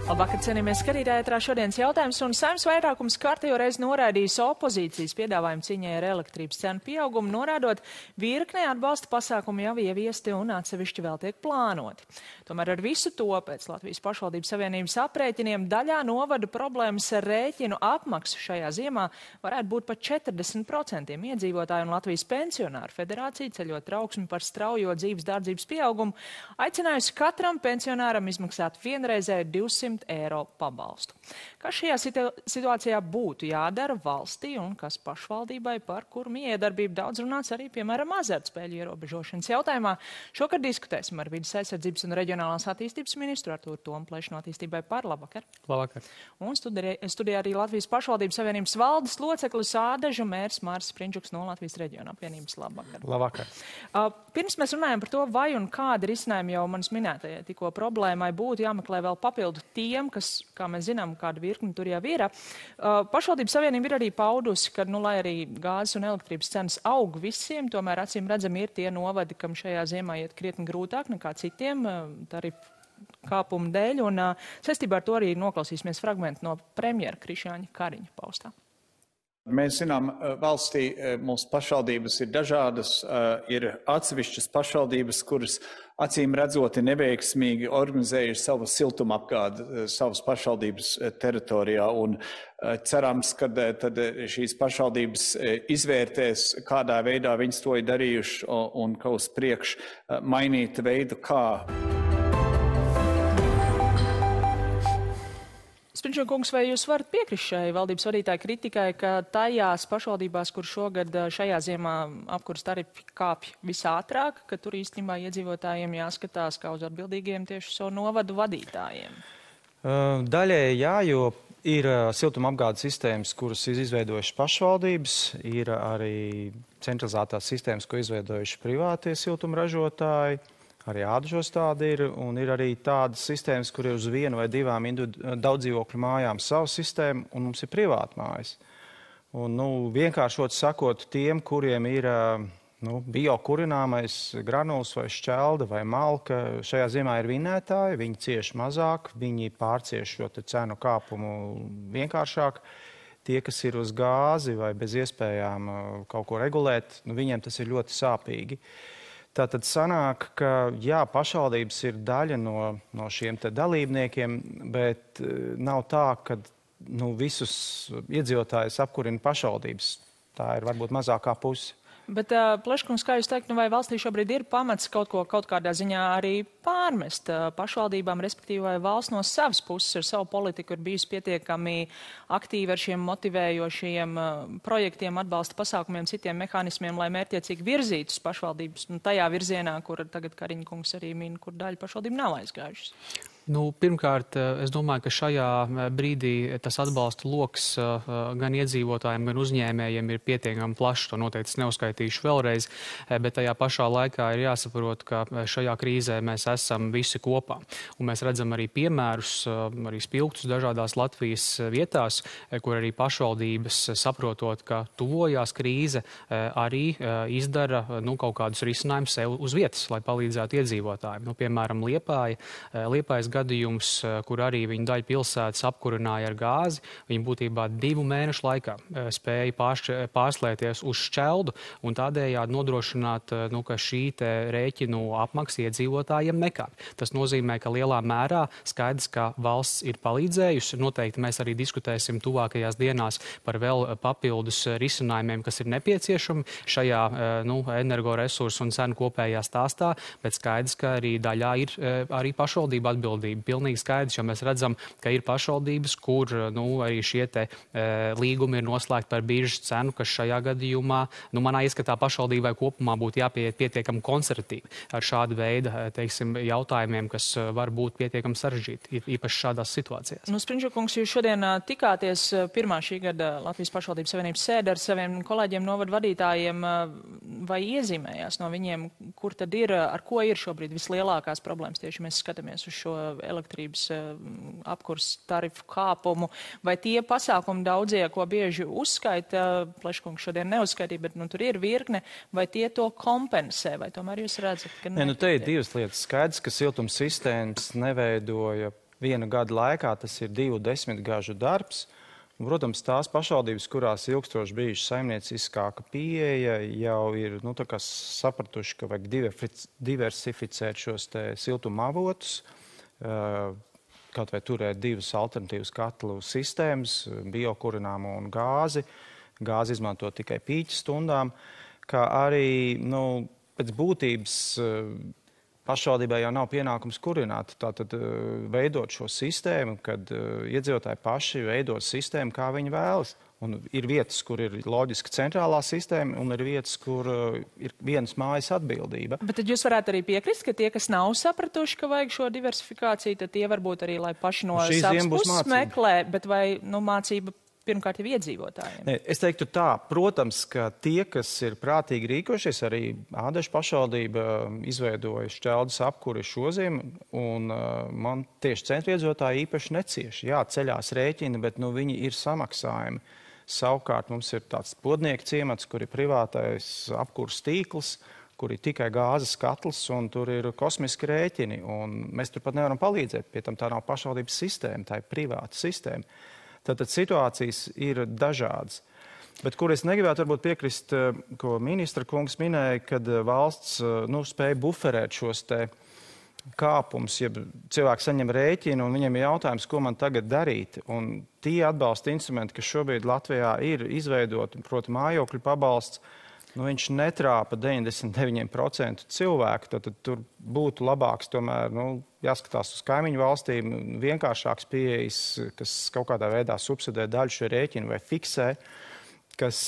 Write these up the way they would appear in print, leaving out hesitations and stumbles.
Labvakar, cienījamies skatītāji, ētrā šodienas jautājums, un Saeimas vairākums kārtējo reizi noraidījis opozīcijas piedāvājumu cīņai ar elektrības cenu pieaugumu, norādot virknē atbalsta pasākumu jau ieviesti un atsevišķi vēl tiek plānoti. Tomēr ar visu to pēc Latvijas pašvaldības savienības aprēķiniem daļā novadu problēmas ar rēķinu apmaksu šajā ziemā varētu būt pat 40% iedzīvotāju, un Latvijas pensionāru federācija, ceļot trauksmi par straujo dzīves dārdzības pieaugumu, aicinājusi katram pensionāram izmaksāt vienreizēju 200 eiro pabalstu. Kas šajā situācijā būtu jādara valstī un kas pašvaldībai, par kuru miedarbību daudz runāts arī, piemēram, azartspēļu ierobežošanas jautājumā? Šokar diskutēsim ar Vides aizsardzības un reģionālās attīstības ministru Artūru Tomu Plešu no Attīstībai par. Labvakar. Labvakar. Un studijā arī Latvijas pašvaldības savienības valdes loceklis Ādežu mērs Māris Sprindžuks no Latvijas reģiona apvienības. Labvakar. Labvakar. Pirms mēs runājam par to, vai un kāda risinājuma jau manas minētajai tikko problēmai būtu jāmeklē vēl papildu tiem, kas, kā mēs zinām, kāda virkni tur jau ir. Pašvaldības savienība ir arī paudusi, ka, lai arī gāzes un elektrības cenas aug visiem, tomēr acīm redzami ir tie novadi, kam šajā ziemā iet krietni grūtāk nekā citiem tarifu kāpumu dēļ, un saistībā ar to arī noklausīsimies fragmentu no premjera Krišjāņa Kariņa paustā. Mēs zinām, valstī mūsu pašvaldības ir dažādas, ir atsevišķas pašvaldības, kuras acīm redzoti neveiksmīgi organizējuši savu siltumapgādi savas pašvaldības teritorijā, un cerams, ka tad šīs pašvaldības izvērtēs, kādā veidā viņas to ir darījuši, un ka uz priekšu mainīt veidu, kā. Sprindžukungs, vai jūs varat piekrist šai valdības vadītāja kritikai, ka tajās pašvaldībās, kur šogad šajā ziemā apkures tarifi kāpj visātrāk, ka tur īstenībā iedzīvotājiem jāskatās kā uz atbildīgiem tieši savu novadu vadītājiem? Daļēji jā, jo ir siltumapgādes sistēmas, kuras ir izveidojušas pašvaldības, ir arī centralizētās sistēmas, ko izveidojuši privātie siltumražotāji. Arī Ādažos tāda ir, un ir arī tādas sistēmas, kur ir uz vienu vai divām daudzdzīvokļu mājām savu sistēmu, un mums ir privāta mājas. Un, vienkāršot sakot, tiem, kuriem ir biokurināmais granuls vai šķelda vai malka, šajā ziemā ir vinētāji, viņi cieš mazāk, viņi pārcieš šo cenu kāpumu vienkāršāk. Tie, kas ir uz gāzi vai bez iespējām kaut ko regulēt, viņiem tas ir ļoti sāpīgi. Tātad sanāk, ka jā, pašvaldības ir daļa no šiem te dalībniekiem, bet nav tā, ka visus iedzīvotājus apkurina pašvaldības. Tā ir varbūt mazākā puse. Bet, Pleškungs, kā jūs teikt, vai valstī šobrīd ir pamats kaut kādā ziņā arī pārmest pašvaldībām, respektīvi vai valsts no savas puses ar savu politiku ir bijusi pietiekami aktīvi ar šiem motivējošiem projektiem, atbalsta pasākumiem, citiem mehānismiem, lai mērķiecīgi virzītus pašvaldības tajā virzienā, kur tagad Kariņa kungs arī min, kur daļa pašvaldību nav aizgājušas? Pirmkārt, es domāju, ka šajā brīdī tas atbalsta loks gan iedzīvotājiem, gan uzņēmējiem ir pietiekami plašs. To noteikti neuzskaitīšu vēlreiz, bet tajā pašā laikā ir jāsaprot, ka šajā krīzē mēs esam visi kopā. Un mēs redzam arī piemērus, arī spilgtus dažādās Latvijas vietās, kur arī pašvaldības, saprotot, ka tuvojās krīze, arī izdara kaut kādus risinājumus sev uz vietas, lai palīdzētu iedzīvotājiem. Piemēram, Liepājas gadījums, kur arī viņa daļa pilsētas apkurināja ar gāzi, viņa būtībā 2 mēnešu laikā spēja pārslēties uz šķeldu un tādējādi nodrošināt, ka šī te rēķinu apmaksa iedzīvotājiem nekāp. Tas nozīmē, ka lielā mērā skaidrs, ka valsts ir palīdzējusi. Noteikti mēs arī diskutēsim tuvākajās dienās par vēl papildus risinājumiem, kas ir nepieciešami šajā energoresursu un cenu kopējā stāstā, bet skaidrs, ka arī daļā ir arī pašvaldība atbildība. Pilnīgi skaidrs, jo mēs redzam, ka ir pašvaldības, kur arī šie te līgumi ir noslēgti par biržas cenu, kas šajā gadījumā, manā ieskatā pašvaldībai kopumā būtu jāpieiet pietiekami konservatīvi ar šādu veidu, jautājumiem, kas var būt pietiekami sarežģīti, īpaši šādās situācijās. Sprindžukungs, jūs šodien tikāties pirmā šī gada Latvijas pašvaldības savienības sēde ar saviem kolēģiem novadu vadītājiem, vai iezīmējās no viņiem, kur tad ir, ar ko ir šobrīd vislielākās problēmas, tieši mēs skatāmies uz šo elektrības apkurs tarifu kāpumu, vai tie pasākumi daudzie, ko bieži uzskaita, Pleškungs šodien neuzskaitīja, bet tur ir virkne, vai tie to kompensē, vai tomēr jūs redzat, ka te ir divas lietas. Skaidrs, ka siltums sistēmas neveidoja viena gada laikā tas ir 20 gažu darbs. Un, protams, tās pašvaldības, kurās ilgstoši bijuši saimnieciskāka pieeja, jau ir sapratuši, ka vajag diversificēt šos siltuma avotus, kaut vai turēt 2 alternatīvas katlu sistēmas, biokurināmo un gāzi. Gāzi izmanto tikai pīķa stundām, kā arī pēc būtības pašvaldībai jau nav pienākums kurināt, tātad veidot šo sistēmu, kad iedzīvotāji paši veido sistēmu, kā viņi vēlas. Un ir vietas, kur ir loģiski centrālā sistēma, un ir vietas, kur ir vienas mājas atbildība. Bet tad jūs varētu arī piekrist, ka tie, kas nav sapratuši, ka vajag šo diversifikāciju, tad tie varbūt arī, lai paši no savas puses meklē, bet vai mācība pirmkārt jau iedzīvotājiem? Es teiktu tā, protams, ka tie, kas ir prātīgi rīkojušies, arī Ādažu pašvaldība izveidoja šķeldes apkuri šoziem, un man tieši centra iedzīvotāji īpaši necieši. Jā, ceļās rēķini, bet viņi ir samaksājumi. Savukārt mums ir tāds Podnieku ciemats, kur ir privātais apkurs tīkls, kur ir tikai gāzes katls, un tur ir kosmiski rēķini, un mēs tur pat nevaram palīdzēt. Pie tam tā nav pašvaldības sistēma, tā ir privāta sistēma. Tātad situācijas ir dažādas. Bet kur es negribētu varbūt piekrist, ko ministra kungs minēja, kad valsts spēja buferēt šos kāpums, ja cilvēki saņem rēķinu un viņiem ir jautājums, ko man tagad darīt. Un tie atbalsta instrumenti, kas šobrīd Latvijā ir izveidoti, proti mājokļu pabalsts, viņš netrāpa 99% cilvēku. Tad tur būtu labāks tomēr, jāskatās uz kaimiņu valstīm, vienkāršāks pieejas, kas kaut kādā veidā subsidē daļu šo rēķinu vai fiksē, kas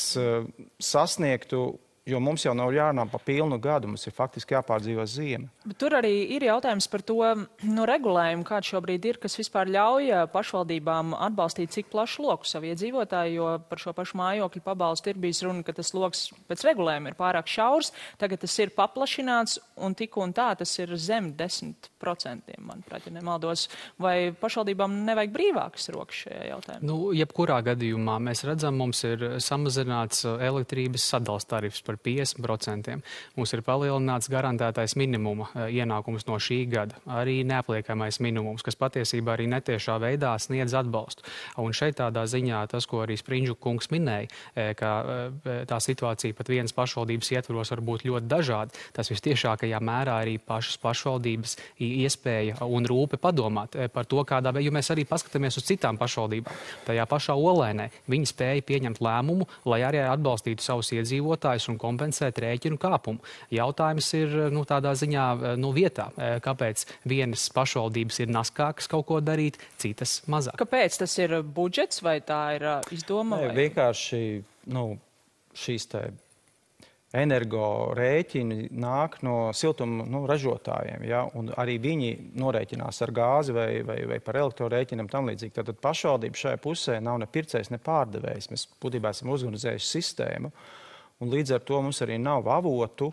sasniegtu. Jo mums jau nav jārunā pa pilnu gadu, mums ir faktiski jāpārdzīvo ziema. Bet tur arī ir jautājums par to regulējumu, kāds šobrīd ir, kas vispār ļauj pašvaldībām atbalstīt cik plašu loku savu iedzīvotāju, jo par šo pašu mājokļu pabalstu ir bijis runa, ka tas loks pēc regulējuma ir pārāk šaurs, tagad tas ir paplašināts un tik un tā tas ir zem 10%, manuprāt, ja nemaldos. Vai pašvaldībām nevajag brīvākas rokas šajā jautājumā? Jebkurā gadījumā mēs redzam, mums ir samazināts elektrības sadals tarifs par 50%. Mums ir palielināts garantētais minimuma ienākums no šī gada, arī neapliekamais minimums, kas patiesībā arī netiešā veidā sniedz atbalstu. Un šeit tādā ziņā tas, ko arī Sprindžu kungs minēja, ka tā situācija pat vienas pašvaldības ietvaros var būt ļoti dažāda, tas vistiešākajā mērā arī pašas pašvaldības iespēja un rūpe padomāt par to, kādā veidā, jo mēs arī paskatāmies uz citām pašvaldībām. Tajā pašā Olēnē viņi spēja pieņemt lēmumu, lai arī atbalstītu savus iedzīvotājus un kompensēt rēķinu kāpumu. Jautājums ir tādā ziņā vietā, kāpēc vienas pašvaldības ir naskākas kaut ko darīt, citas mazāk. Kāpēc tas ir budžets vai tā ir izdoma? Vienkārši šīs energo rēķini nāk no siltuma ražotājiem, ja? Un arī viņi norēķinās ar gāzi vai par elektrorēķinam tam līdzīgi. Tātad pašvaldība šajā pusē nav ne pircējs, ne pārdevējs. Mēs būtībā esam uzorganizējuši sistēmu. Un līdz ar to mums arī nav avotu.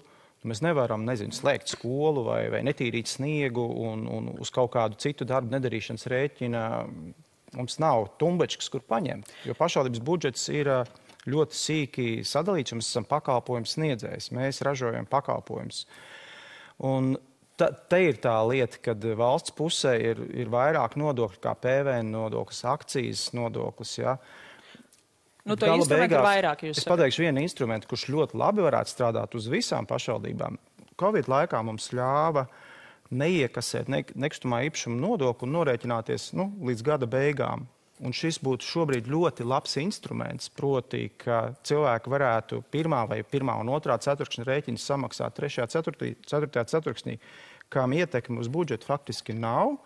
Mēs nevaram, slēgt skolu vai netīrīt sniegu un uz kaut kādu citu darbu nedarīšanas rēķina. Mums nav tumbečkas, kur paņemt. Jo pašvaldības budžets ir ļoti sīki sadalīts, un mēs esam pakalpojums sniedzējs. Mēs ražojam pakalpojumus. Un te ir tā lieta, kad valsts pusē ir vairāk nodokļu kā PVN nodoklis, akcijas nodoklis, ja. To instrumentu ir vairāk, jūs sakat. Es pateikšu vienu instrumentu, kurš ļoti labi varētu strādāt uz visām pašvaldībām. Covid laikā mums ļāva neiekasēt nekustamā īpašuma nodokli un norēķināties līdz gada beigām. Un šis būtu šobrīd ļoti labs instruments, proti, ka cilvēki varētu pirmā un otrā ceturkšņa rēķiņas samaksāt 3. 4. ceturksnī, kam ietekme uz budžetu faktiski nav,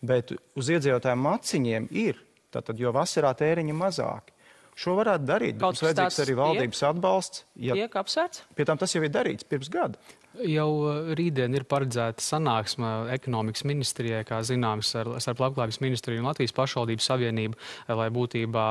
bet uz iedzīvotāju maciņiem ir, tātad, jo vasarā tēriņi mazāki. Šo varētu darīt, bet mums vajadzīgs arī valdības atbalsts. Tiek apsvērts? Pie tam tas jau ir darīts pirms gada. Jau rītdien ir paredzēta sanāksme ekonomikas ministrijai, kā zināms, ar Labklājības ministriju un Latvijas pašvaldību savienību, lai būtībā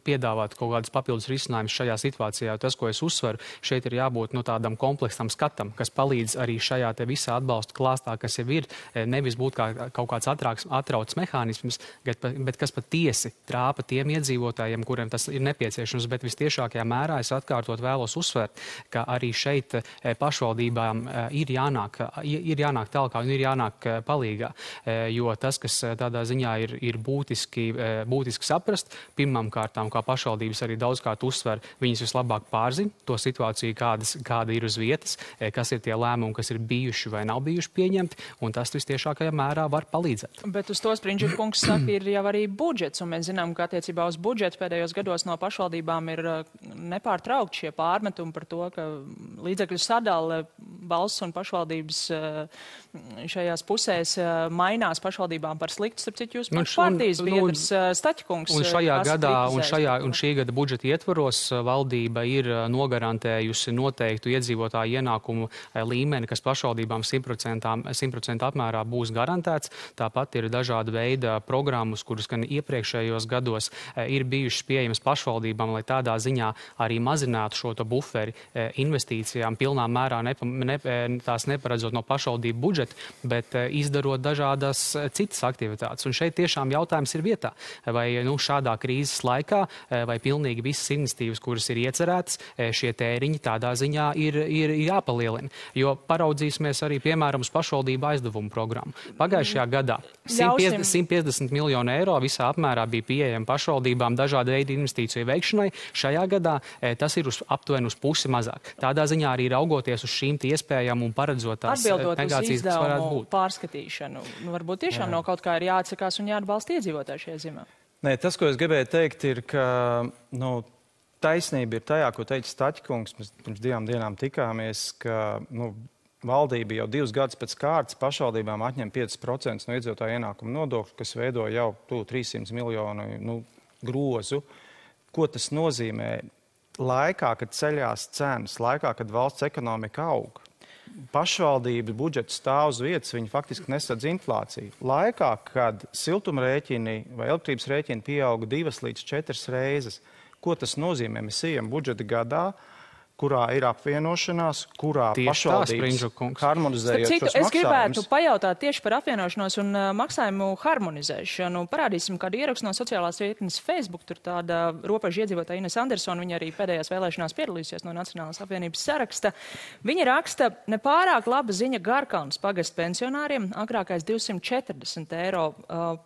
piedāvātu kaut kādus papildus risinājumus šajā situācijā. Tas, ko es uzsveru, šeit ir jābūt tādam kompleksam skatam, kas palīdz arī šajā te visā atbalsta klāstā, kas jau ir, nevis būt kā kaut kāds atrauts mehānisms, bet kas patiesi trāpa tiem iedzīvotājiem, kuriem tas ir nepieciešams, bet vistiešākajā mērā es atkārtot vēlos uzsvērt, ka arī šeit pašvaldībām ir jānāk tālāk un ir jānāk palīgā, jo tas, kas tādā ziņā ir būtiski saprast, pirmām kārtām, kā pašvaldības arī daudzkārt uzsver, viņas vislabāk pārzina to situāciju, kāda ir uz vietas, kas ir tie lēmumi, kas ir bijuši vai nav bijuši pieņemti, un tas vistiešākajā mērā var palīdzēt. Bet uz to Sprindža kungs saka, ir jau arī budžets, un mēs zinām, ka attiecībā uz budžetu pēdējos gados no pašvaldībām ir nepārtraukti šie pārmetumi par to, ka līdzekļu sadale valsts un pašvaldības šajās pusēs mainās pašvaldībām par sliktu, starp citu jūs partijas biedrs Staķkungs. Un šajā gadā, un šī gada budžeta ietvaros valdība ir nogarantējusi noteiktu iedzīvotāju ienākumu līmeni, kas pašvaldībām 100% apmērā būs garantēts. Tāpat ir dažāda veida programmas, kuras gan iepriekšējos gados ir bijušas pieejamas pašvaldībām, lai tādā ziņā arī mazinātu šo buferi investīcijām, pilnā mērā tās neparedzot no pašvaldību budžeta, bet izdarot dažādas citas aktivitātes. Un šeit tiešām jautājums ir vietā, vai šādā krīzes laikā, vai pilnīgi visas iniciatīvas, kuras ir iecerētas, šie tēriņi tādā ziņā ir jāpalielina. Jo paraudzīsimies arī, piemēram, uz pašvaldību aizdevumu programmu. Pagājušajā gadā 150 miljonu eiro visā apmērā bija pieejami pašvaldībām dažādu veidu investīciju veikšanai. Šajā gadā tas ir aptuveni uz pusi mazāk. Tādā ziņā arī raugoties uz šīm iespējām un paredzot tās negācijas, kas varētu būt. Pārskatīšanu. Varbūt tiešām no kaut kā ir jāatsakās un jāatbalsta iedzīvotāji šajā ziņā. Nē, tas, ko es gribēju teikt, ir, ka taisnība ir tajā, ko teica Staķkungs. Mēs pirms 2 dienām tikāmies, ka valdība jau 2 gadus pēc kārtas pašvaldībām atņem 5% no iedzīvotāju ienākumu nodokļu, kas veido jau 300 miljonu grozu. Ko tas nozīmē? Laikā, kad ceļās cenas, laikā, kad valsts ekonomika aug, pašvaldības budžets stāv uz vietas, viņi faktiski nesadz inflāciju. Laikā, kad siltumrēķini vai elektrības rēķini pieauga 2 līdz 4 reizes, ko tas nozīmē? Mēs ejam budžeta gadā, kurā ir apvienošanās, kurā pašvaldības harmonizējot šos maksājumus. Es gribētu pajautāt tieši par apvienošanos un maksājumu harmonizēšanu. Parādīsim kādu ierakstu no sociālās vietnes Facebook. Tur tāda robeža iedzīvotāja Ines Andersona, viņa arī pēdējās vēlēšanās piedalījusies no Nacionālās apvienības saraksta. Viņa raksta, nepārāk laba ziņa Garkalnas pagasta pensionāriem. Agrākais 240 eiro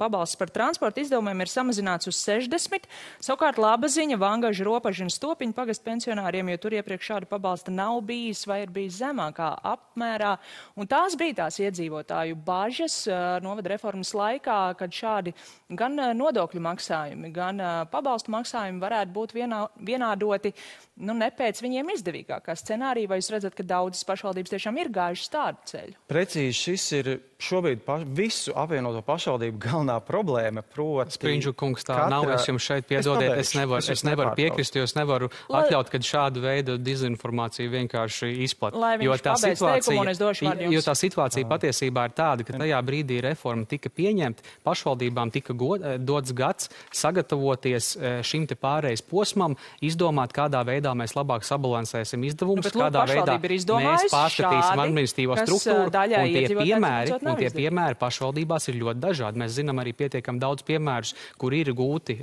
pabalsts par transporta izdevumiem ir samazināts uz 60. Savukārt laba ziņa Vangaža, Ropaža un Stopiņa pagasta pensionāriem, jo tur iepriekš šāda pabalsta nav bijis vai ir bijis zemākā apmērā. Un tās bija tās iedzīvotāju bažas novada reformas laikā, kad šādi gan nodokļu maksājumi, gan pabalstu maksājumi varētu būt vienādoti ne pēc viņiem izdevīgākā scenārija. Vai jūs redzat, ka daudzas pašvaldības tiešām ir gājušas tādu ceļu? Precīzi, šis ir šobrīd visu apvienoto pašvaldību galvenā problēma, proti... Sprindža kungs, tā nav, es jums šeit piedodiet, es nevaru piekrist, jo es nevaru atļaut, kad šādu veidu dezinformāciju vienkārši izplat. Jo tā situācija patiesībā ir tāda, ka tajā brīdī reforma tika pieņemta, pašvaldībām tika dots gads sagatavoties šim te pārejas posmam, izdomāt, kādā veidā mēs labāk sabalansēsim izdevumus, kādā veidā mēs pārskatīsim administratīvo struktūru, un tie piemēri pašvaldībās ir ļoti dažādi. Mēs zinām arī pietiekam daudz piemērus, kur ir gūti,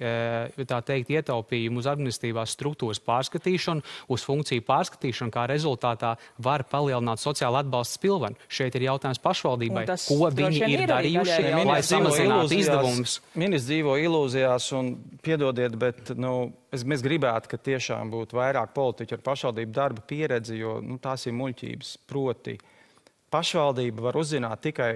tā teikt, ietaupījumi uz administratīvās struktūras pārskatīšanu, uz funkciju pārskatīšanu, kā rezultātā var palielināt sociāla atbalsta spilvenu. Šeit ir jautājums pašvaldībai, ko viņi ir darījuši, lai samazinātu izdevumus. Ministrs dzīvo ilūzijās un piedodiet, bet mēs gribētu, ka tiešām būtu vairāk politiķu ar pašvaldību darba pieredzi, jo tās ir muļķības. Proti, pašvaldība var uzzināt tikai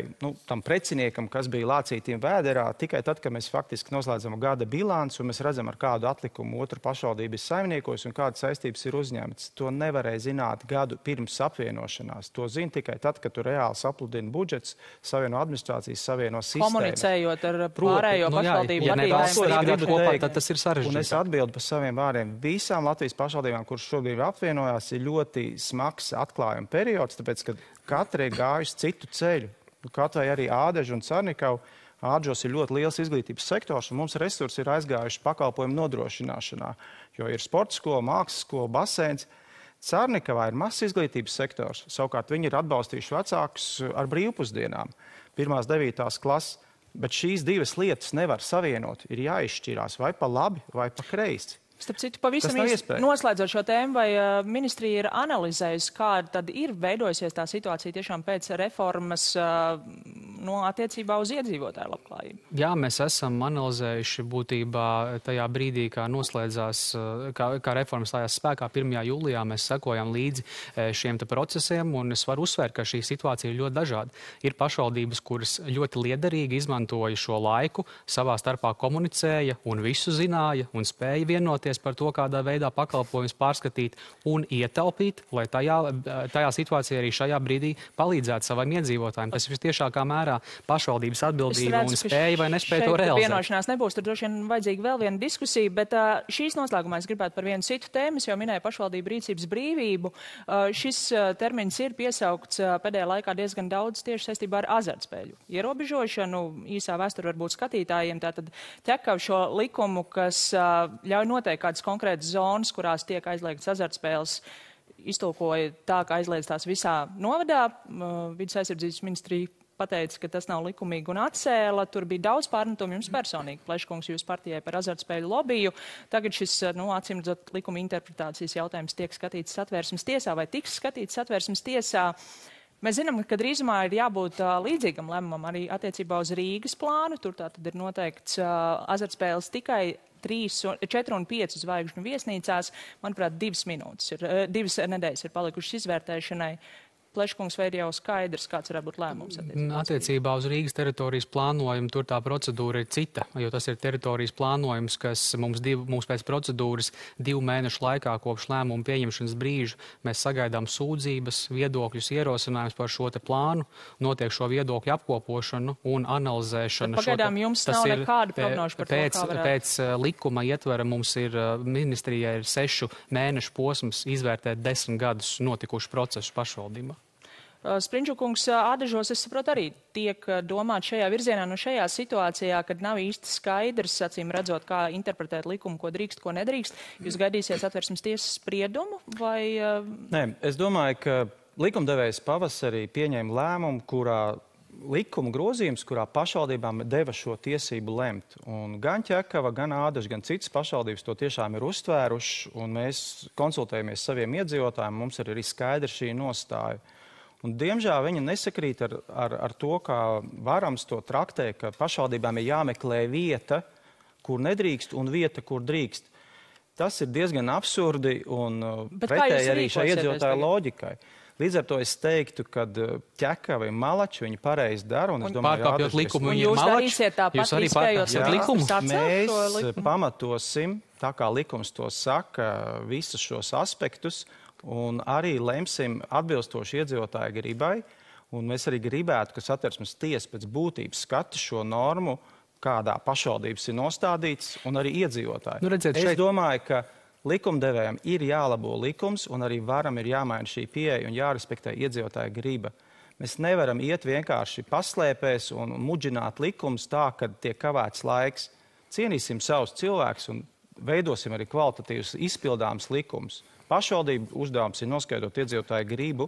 tam preciniekam, kas bija lācītiem vēderā, tikai tad, kad mēs faktiski noslēdzam gada bilanci un mēs redzam, ar kādu atlikumu otru pašvaldību ir saimniekos un kādas saistības ir uzņemtas. To nevarēja zināt gadu pirms apvienošanās. To zina tikai tad, kad tu reāli sapludini budžets, savieno administrācijas, savieno sistēmas. Komunicējot ar pārējo pašvaldību vadītājiem, tad tas ir sarežģīti. Un es atbildu par saviem vārdiem. Visām Latvijas pašvaldībām, kuras šobrīd apvienojās, ir ļoti smags atklājuma periods, tāpēc, ka katra ir gājusi citu ceļu. Kaut vai arī Ādeža un Carnikava. Ādežos ir ļoti liels izglītības sektors, un mums resursi ir aizgājuši pakalpojumu nodrošināšanā, jo ir sporta skola, mākslas skola, baseins. Carnikavā ir mazs izglītības sektors. Savukārt viņi ir atbalstījuši vecākus ar brīvpusdienām, 1.–9. klases. Bet šīs divas lietas nevar savienot. Ir jāizšķirās vai pa labi, vai pa kreisi. Starp citu, pavisam īsti noslēdzot šo tēmu, vai ministrija ir analizējusi, kā tad ir veidojusies tā situācija tiešām pēc reformas attiecībā uz iedzīvotāju labklājību? Jā, mēs esam analizējuši būtībā tajā brīdī, kā noslēdzās, kā reforma stājās spēkā 1. jūlijā, mēs sekojam līdzi šiem procesiem, un es varu uzsvērt, ka šī situācija ir ļoti dažāda. Ir pašvaldības, kuras ļoti liederīgi izmantoja šo laiku, savā starpā komunicēja un visu zināja un spēja vienoties par to, kādā veidā pakalpojumus pārskatīt un ietaupīt, lai tajā situācijā arī šajā brīdī palīdzētu saviem iedzīvotājiem. Tas ir tiešākā mērā pašvaldības atbildība un spēja vai nespēja to realizēt. Vienošanās nebūs, tur droši vien vajadzīga vēl viena diskusija, bet šīs noslēgumā es gribētu par vienu citu tēmu, jau minēju pašvaldību rīcības brīvību. Šis termins ir piesaukts pēdējā laikā diezgan daudz tieši saistībā ar azartspēļu ierobežošanu. Īsā vēsture varbūt skatītājiem tātad ķekav šo likumu, kas ļauj noteikt kādas konkrētas zonas, kurās tiek aizliegtas azartspēles, iztulkoja tā, ka aizliedz tās visā novadā. Vides aizsardzības ministrija pateica, ka tas nav likumīgi un atcēla. Tur bija daudz pārmetumu jums personīgi, Pleškungs, jūs partijai par azartspēļu lobiju. Tagad šis, acīm redzot, likuma interpretācijas jautājums tiek skatīts Satversmes tiesā vai tiks skatīts Satversmes tiesā. Mēs zinām, ka drīzumā ir jābūt līdzīgam lēmumam arī attiecībā uz Rīgas plānu. Tur tātad ir noteikts azartspēles tikai 3, 4 un 5 zvaigžņu viesnīcās. Manuprāt, 2 nedēļas ir palikušas izvērtēšanai. Pleškungs, vai ir jau skaidrs, kāds varētu būt lēmums? Attiecībā uz Rīgas teritorijas plānojumu tur tā procedūra ir cita, jo tas ir teritorijas plānojums, kas mums pēc procedūras 2 mēnešu laikā kopš lēmuma pieņemšanas brīža mēs sagaidām sūdzības, viedokļus, ierosinājumus par šo te plānu, notiek šo viedokļu apkopošanu un analizēšanu. Pagaidām jums nav nekāda prognoža par to, kā varētu. Pēc likuma ietvera mums ir, ministrijai ir 6 mēnešu posms izvērtēt 10 gadus notikušu procesu pašvaldībā. Sprindžukungs, Ādažos, es saprotu, arī tiek domāt šajā virzienā, šajā situācijā, kad nav īsti skaidrs, acīm redzot, kā interpretēt likumu, ko drīkst, ko nedrīkst. Jūs gaidīsiet Satversmes tiesas spriedumu vai? Nē, es domāju, ka likumdevējs pavasarī pieņēma lēmumu, kurā likuma grozījums, kurā pašvaldībām deva šo tiesību lemt. Un gan Ķekava, gan Ādaža, gan citas pašvaldības to tiešām ir uztvēruši, un mēs konsultējamies saviem iedzīvotājiem, mums ir arī skaidra šī nostāja. Un, diemžēl viņa nesakrīt ar to, kā varams to traktē, ka pašvaldībām ir jāmeklē vieta, kur nedrīkst, un vieta, kur drīkst. Tas ir diezgan absurdi un pretēji arī šai iedzīvotāju loģikai. Līdz ar to es teiktu, ka Ķekava ir malači, viņi pareizi dara. Pārkāpjot likumu, viņi ir malači. Jūs arī pārkāpjot likumu? Mēs pamatosim, tā kā likums to saka, visus šos aspektus, un arī lemsim atbilstoši iedzīvotāju gribai. Un mēs arī gribētu, ka Satversmes tiesa pēc būtības skata šo normu, kādā pašvaldības ir nostādīts, un arī iedzīvotāji. Es domāju, ka likumdevējiem ir jālabo likums, un arī varam ir jāmaina šī pieeja un jārespektē iedzīvotāja griba. Mēs nevaram iet vienkārši paslēpēs un mudžināt likumus tā, kad tiek kavēts laiks. Cienīsim savus cilvēkus un veidosim arī kvalitatīvus izpildāmus likumus. Pašvaldību uzdevums ir noskaidrot iedzīvotāju gribu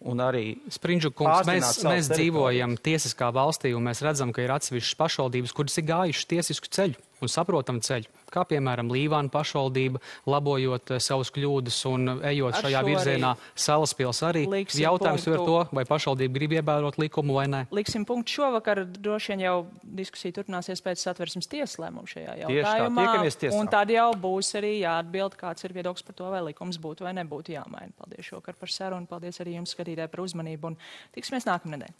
un arī Sprindžukungs, mēs dzīvojam tiesiskā valstī, un mēs redzam, ka ir atsevišķas pašvaldības, kuras ir gājušas tiesisku ceļu un saprotam ceļu. Kā piemēram Līvāna pašvaldība, labojot savus kļūdas un ejot šajā virzienā, Salaspils arī. Jautājums ir to, vai pašvaldība grib ievērot likumu vai nē. Liksim punktu šovakar, droši vien jau diskusija turpināsies pēc Satversmes tiesas lēmumu šajā jautājumā. Un tad jau būs arī jāatbild, kāds ir viedoklis par to, vai likums būtu vai nebūtu jāmaina. Paldies šovakar par sarunu, paldies arī jums, skatītāji, par uzmanību, un tiksimies nākamnedēļ.